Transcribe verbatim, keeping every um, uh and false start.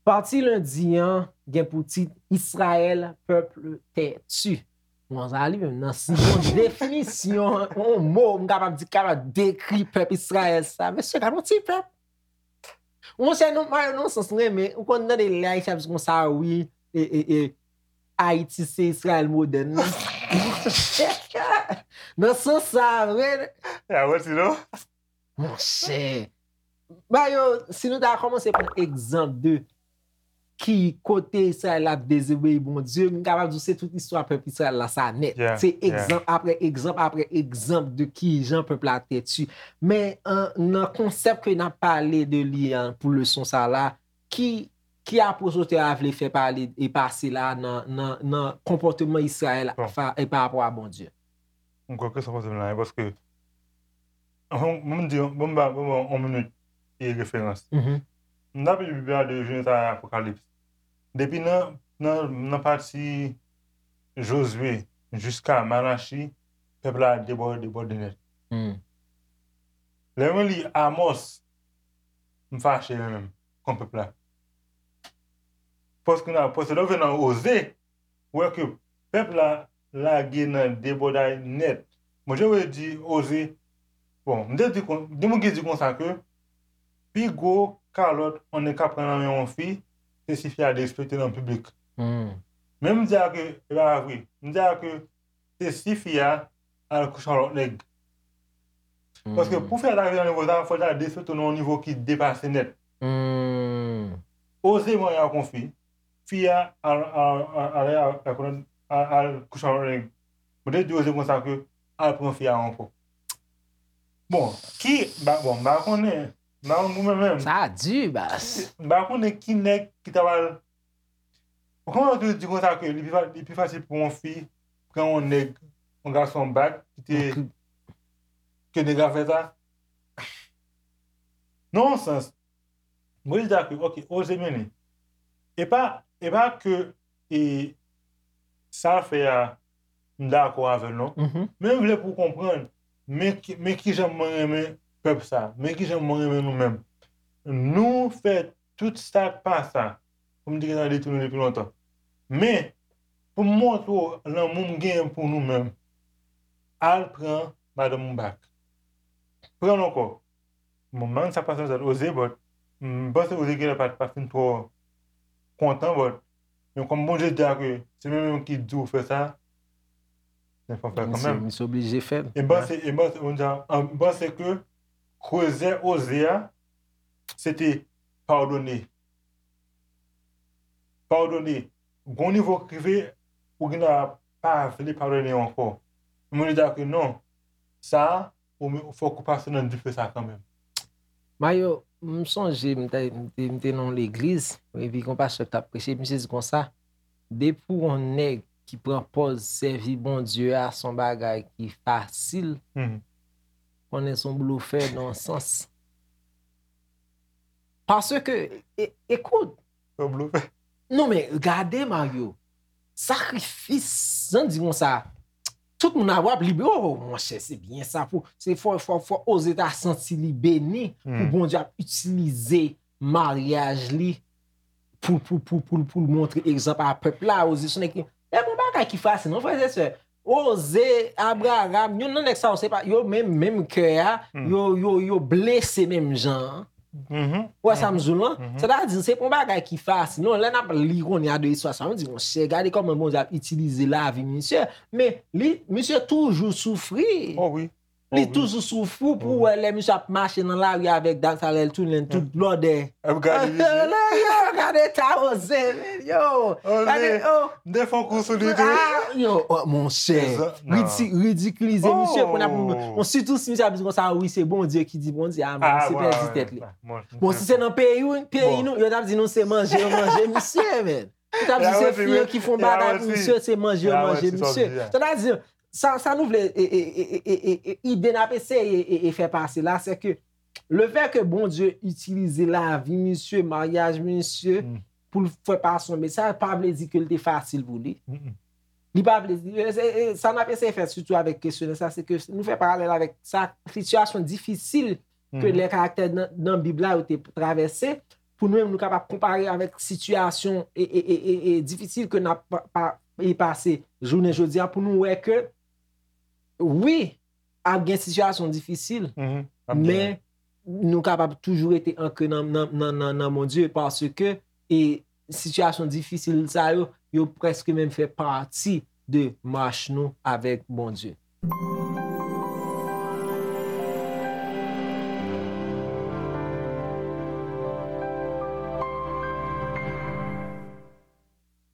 Pati lendi an gen pou tit Israël, peuple têtu. Bon, sa li menm nan si yon definisyon, yon mo m kapab di, kapab dekri pèp Israël sa. Mesye, gade yon ti pèp. Monchè, non, Mario, nan sans mwen renmen, ou konn tande lè Ayisyen ap di konsa, wi, e, e, e, Ayiti se Israël modèn nan. Nan sans sa, vre. Ya, wè, sinon. Monchè. Mario, si nou ta kòmanse pran egzanp de ki kote Israël ap dezobeyi Bondye, m kapab di w se tout istwa pèp Israël la sa nèt. Yeah, se yeah. Egzanp apre egzanp apre egzanp de kijan pèp la tètu. Men an, nan konsèp ke n ap pale de li an pou leson sa la, ki, ki apwoch otè a vle fè pale e pase la nan, nan, nan konpòteman Israël Bon. Fa, e pa rapò a Bondye? M kwè ke sa pase la, paske Bon, bon, m di, bon, m ba, bon, bon, yon minit e referans. M t ap li Bib la de Jenèz a Apokalips. Depi nan, nan, nan pati Jozye jiska Malachi, pèp la debòde, debòde nèt. Lè mwen li Amòs, m fache mwen menm kont pèp la. Paske nan, paske lè w vin nan Oze, ou wè ke pèp la lage nan debòday nèt. Bondye vle di Oze, bon, m te di kon, gen moun ki di konsa ke pi gwo kalòt yon nèg ka pran nan men yon fi, se si fi a derespekte nan piblik. Men m di a ke, e pa vre. M di a ke se si fi a al kouche ak lòt nèg. Paske pou fi a ta rive nan nivo sa, fò l ta derespekte w nan yon nivo ki depase nèt. Oze marye ak yon fi, fi a al, al, al, al, al, al, al kouche ak lòt nèg. Mwen te di Oze konsa ke al pran fi a ankò. Bon, ki, ba, bon, m pa konnen, m pa konn pou mwen menm. Sa di, bas. M pa konnen ki nèg ki ta pral Ou konprann ki di konsa ke li pi, fa- li pi fasil pou yon fi pran yon nèg, yon gason bak, ki te, ke nèg la fè sa? Nan yon sans, mwen di a ke, ok, Oze mennen. E pa, e pa ke e, sa l fè a, m dakò avè l non. Men m vle pou w konprann, men ki, men kijan mwen renmen pèp sa, men kijan mwen renmen nou menm. Nou fè tout sa k pa sa pou m te gentan detwi nou depi lontan. Men, pou m montre w lanmou m genyen pou nou menm, al pran madanm ou bak. Pran l ankò. Bon, m pa konn sa k pase nan tèt Oze, but m panse Oze genlè pa t pa fin twò kontan, but men kòm Bondye di a ke se mwen menm ki di w fè sa, men fò m fè l kanmenm. Misye oblije fè l. E m panse, e m panse, m panse ke krezè Oze a, se te padone. Padone. Gon nivo k rive, ou genlè pa vle padone ankò. Mwen di a ke non, sa a, ou men, fòk ou pase nan dife sa kanmenm. Mayo, m sonje m te, m te, m te nan yon legliz, epi gon pastè k t ap preche, misye di konsa, depi w yon nèg ki pran pòz sèvi Bondye a se yon bagay ki fasil, konnen se yon blofè nan yon sans. Paske, e, ekout. Yon blofè. Non, men gade, Mario. Sakrifis, jan di konsa, tout moun ap wè ap libre, oh, monchè, se byen sa pou, se fò, fò, fò Oze ta santi li beni pou Bondye ap itilize maryaj li pou, pou, pou, pou, pou l montre egzanp a pèp la, Oze se yon nèg ki, e pa yon bagay ki fasil, non, frè e sè. Oze, Abraram, youn nan nèg sa yo, se pa, yo menm, menm kè a, yo, yo, yo blese menm jan an. Ou wè sa m di w lan? Sètadi, se pa yon bagay ki fasil. Non, lè n ap li kounye a de istwa sa, nou di, monchè, gade kòman Bondye ap itilize lavi misye. Men, li, misye toujou soufri. Oh wi. Li toujou soufri pou wè lè misye ap mache nan lari avèk dam sa, lè l tounen tout blòdè. Ap gade misye. Yo, gade eta Oze, men, yo. Gade, oh. M te fè yon kou sou li tou. Ah, yo, oh, monchè. Ridi-, ridikilize misye, kounye a pou, bon, sitou si misye ap di konsa, wi, se Bondye ki di Bondye, ah, men misye pèdi tèt li. Bon, si se nan peyi w, peyi nou, yo t ap di nou se manje yo manje misye, men. Yo t ap di se fi yo ki fè bagay pou misye, se manje yo manje misye. Sètadi, sa, sa nou vle, e, e, ide n ap eseye e, e fè pase la, se ke lefètke Bondye itilize lavi misye, maryaj misye, pou l fè pase yon mesaj, pa vle di ke l te fasil pou li. Li pa vle, e, e, e, sa n ap eseye fè, sitou avèk kesyonè sa, se ke nou fè paralèl avèk sa, sitiyasyon difisil ke lè karaktè nan, nan Bib la yo te travèse, pou nou menm nou kapab konpare avèk sitiyasyon e, e, e, e, e difisil ke n ap pa, pa, e pase jounen jodi a, pou nou wè ke, wi, ap gen sitiyasyon difisil, men nou kapab toujou rete ankre nan, nan, nan, nan, nan Bondye, paske e sitiyasyon difisil sa yo, yo prèske menm fè pati de mach nou avèk Bondye.